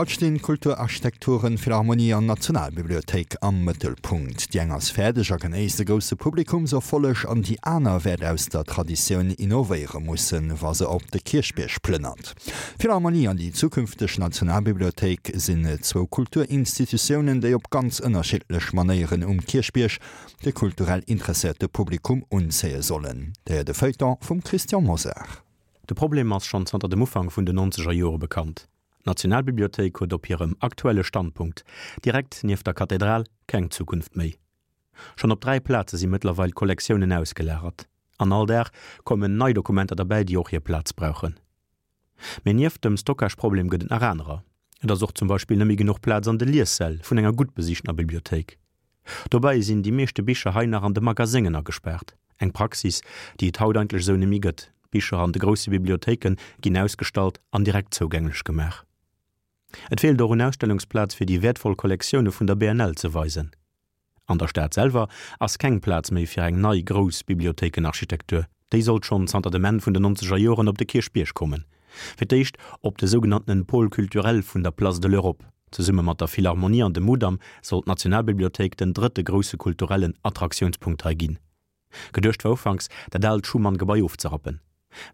Haut stinn Kulturarchitekturen, Philharmonie an Nationalbibliothéik am Mëttelpunkt. Déi eng ass fäerdeg a genéisst e grousse Publikumserfolleg an déi aner wäert aus der Traditioun innovéiere mussen, wa se op de Kierchbierg plënnert. D'Philharmonie an déi zukünfteg Nationalbibliothéik sinn zwou Kulturinstitutiounen, déi op ganz ënnerschiddlech Manéieren um Kierchbierg de kulturell interesséierte Publikum unzéie sollen. Dir héiert e Feuilleton vum Christian Mosar. De Problem ass schonn zanter dem Ufank vun den nonzeger Jore bekannt. D'Nationalbibliothéik huet op hirem aktuelle Standpunkt, direkt nieft der Kathedral, keng Zukunft méi. Schonn op 3 Plaze si mëttlerweil d'Kollektiounen ausgelagert. An all Dag kommen nei Dokumenter derbäi, déi och hir Plaz brauchen. Mee nieft dem Stockage-Problem gëtt et nach anerer. Et ass och zum Beispill net méi genuch Plaz an de Liessäll vun enger gutt besiichtener Bibliothéik. Dobäi sinn déi meeschte Bicher hei nach an de Magaséngen agespaart, eng Praxis, déi et haut eigentlech esou nemmi gëtt. D'Bicher an de grousse Bibliothéike ginn ausgestallt an direkt zougänglech gemaach. Et feelt och un Ausstellungsplaz fir déi wäertvoll Kollektioune vun der BNL ze weisen. An der Stad selwer ass keng Plaz méi fir eng nei grouss Bibliothéikenarchitektur. Déi sollt schonn zanter dem Enn vun den nonzeger Joren op de Kierchbierg kommen. Fir d'éischt op de sougenanntenen Pôle culturel vun der Place de l'Europe. Zesumme mat der Philharmonie an dem Mudam soll d'Nationalbibliothéik den drëtte grousse kulturellen Attраktiounspunkt hei ginn. Geduecht war ufanks, dat aalt Schuman-Gebai ofzerappen.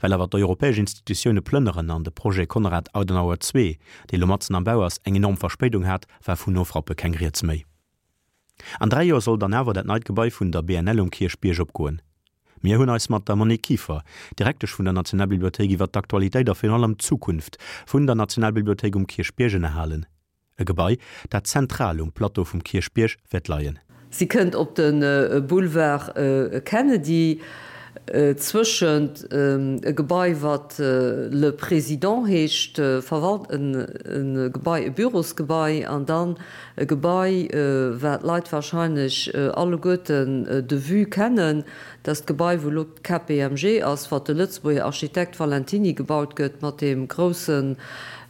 Well awer d'europäesch Institutioune plënneren an de Projet Konrad Adenauer ii, dee lo matzen am Bau ass, eng enorm Verspéidung hat, war vun Ofrappe keng Rieds méi. An 3 Joer soll dann awer dat neit Gebai vun der BNL um Kierchbierg opgoen. Mir hunn eis mat der Monique Kieffer, Direktesch vun der Nationalbibliothéik iwwer d'Aktualitéit a virun allem d'Zukunft vun der Nationalbibliothéik um Kierchbierg ënnerhalen. E Gebai, dat zentral um Plateau vum Kierchbierg wäert leien. Si kënnt op de Boulevard Kennedy, zwëschent e Gebai, wat Le Président heescht, verwalt, e Gebai, e Bürosgebai, an dann E Gebai, wat d'Leit wahrscheinlech alleguerten de vue kennen, dat ass d'Gebai, wou elo d'KPMG ass, wat de Lëtzebuerger Architekt Valentiny gebaut gëtt, mat deem groussen,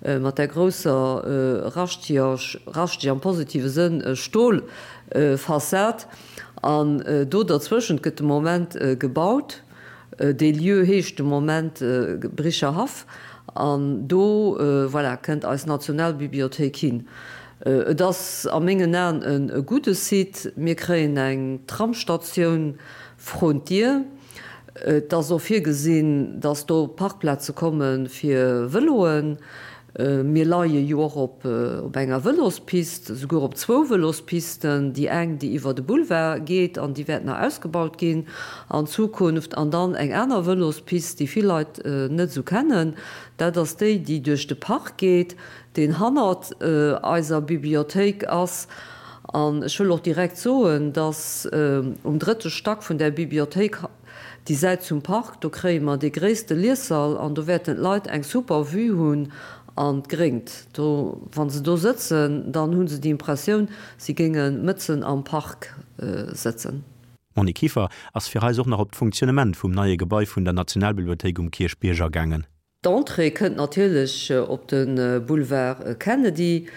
mat där grousser raschteger, raschteg am positive Sënn, Stolfassad. An do derzwëschent gëtt de Moment gebaut. Dee Lieu heescht de Moment Bricher Haff an do, voilà, kënnt eis Nationalbibliothéik hin. Et ass a mengen Aen e gudde Site. Mir kréien eng Tramsstatioun vrun d'Dier. Et ass och virgesinn, dass do Parkplaze komme fir Vëloen. Mir leie jo och op enger Vëlospist, esouguer op zwou Vëlospisten, déi eng, déi iwwer de Boulevard geet an déi wäert nach ausgebaut ginn an Zukunft, an dann eng aner Vëlospist, déi vill Leit net esou kennen, dat ass déi, déi duerch de Park geet, deen hannert eiser Bibliothéik ass. An ech wëll och direkt soen, dass um drëtte Stack vun där Bibliothéik, Déi Säit zum Park, do kréie mer dee gréisste Liessall an do wäerten d'Leit eng super Vue hunn an d'Gréngt. Do, wa se do sëtzen, dann hu se déi Impressioun, si géinge mëtzen am Park sëtzen. D'Monique Kieffer ass fir eis och nach op d'Funktionnement vum neie Gebai vun der Nationalbibliothéik um Kierchbierg agaangen. D'Entrée kënnt natierlech op de Boulevard Kennedy.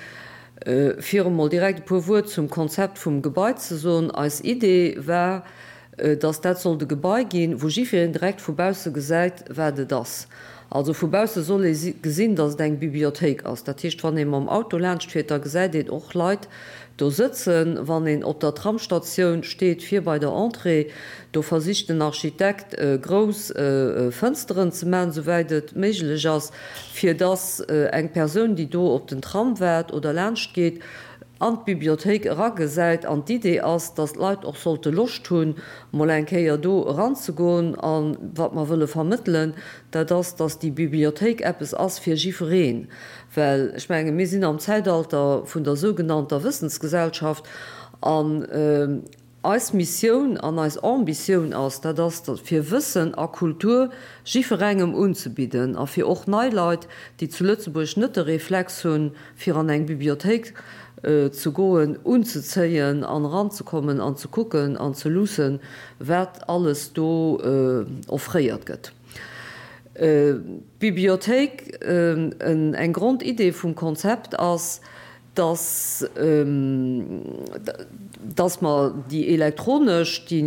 Fir emol direkt e puer Wuert zum Konzept vum Gebai ze soen, Eis Idee war, dass dat sollt e Gebai ginn, wou jiffireen direkt vu bausse gesäit, wat et ass. Also vu bausse soll ee gesinn, dass et eng Bibliothéik ass. Dat heescht, wann ee mam Auto laanscht fiert, da gesäit een och Leit do sëtzen. Wann een op der Tramsstatioun steet, vir bei der Entrée, do versicht den Architekt grouss Fënsteren ze maachen, souwäit et méiglech ass, fir dass eng Persoun, déi do op den Tram waart oder laanscht geet, an d'Bibliothéik eragesäit. An d'Idee ass, dass d'Leit och sollte Loscht hunn, mol eng Kéier do eranzegoen. A wat mer wëlle vermëttelen, dat ass, dass déi Bibliothéik eppes ass fir jifereen. Well ech menge mir sinn am Zäitalter vun der sougenannter Wëssensgesellschaft an eis Missioun an eis Ambitioun ass, dat ass fir Wëssen a Kultur jifferengem unzebidden a fir och nei Leit, déi zu Lëtzebuerg net de Reflex hunn, fir an eng Bibliothéik ze goen, unzezéien an eranzekommen an ze kucken an ze luussen, wat alles do offréiert gëtt. D'Bibliothéik, eng Grondidee vum Konzept ass, dass dass mer déi elektronesch, déi.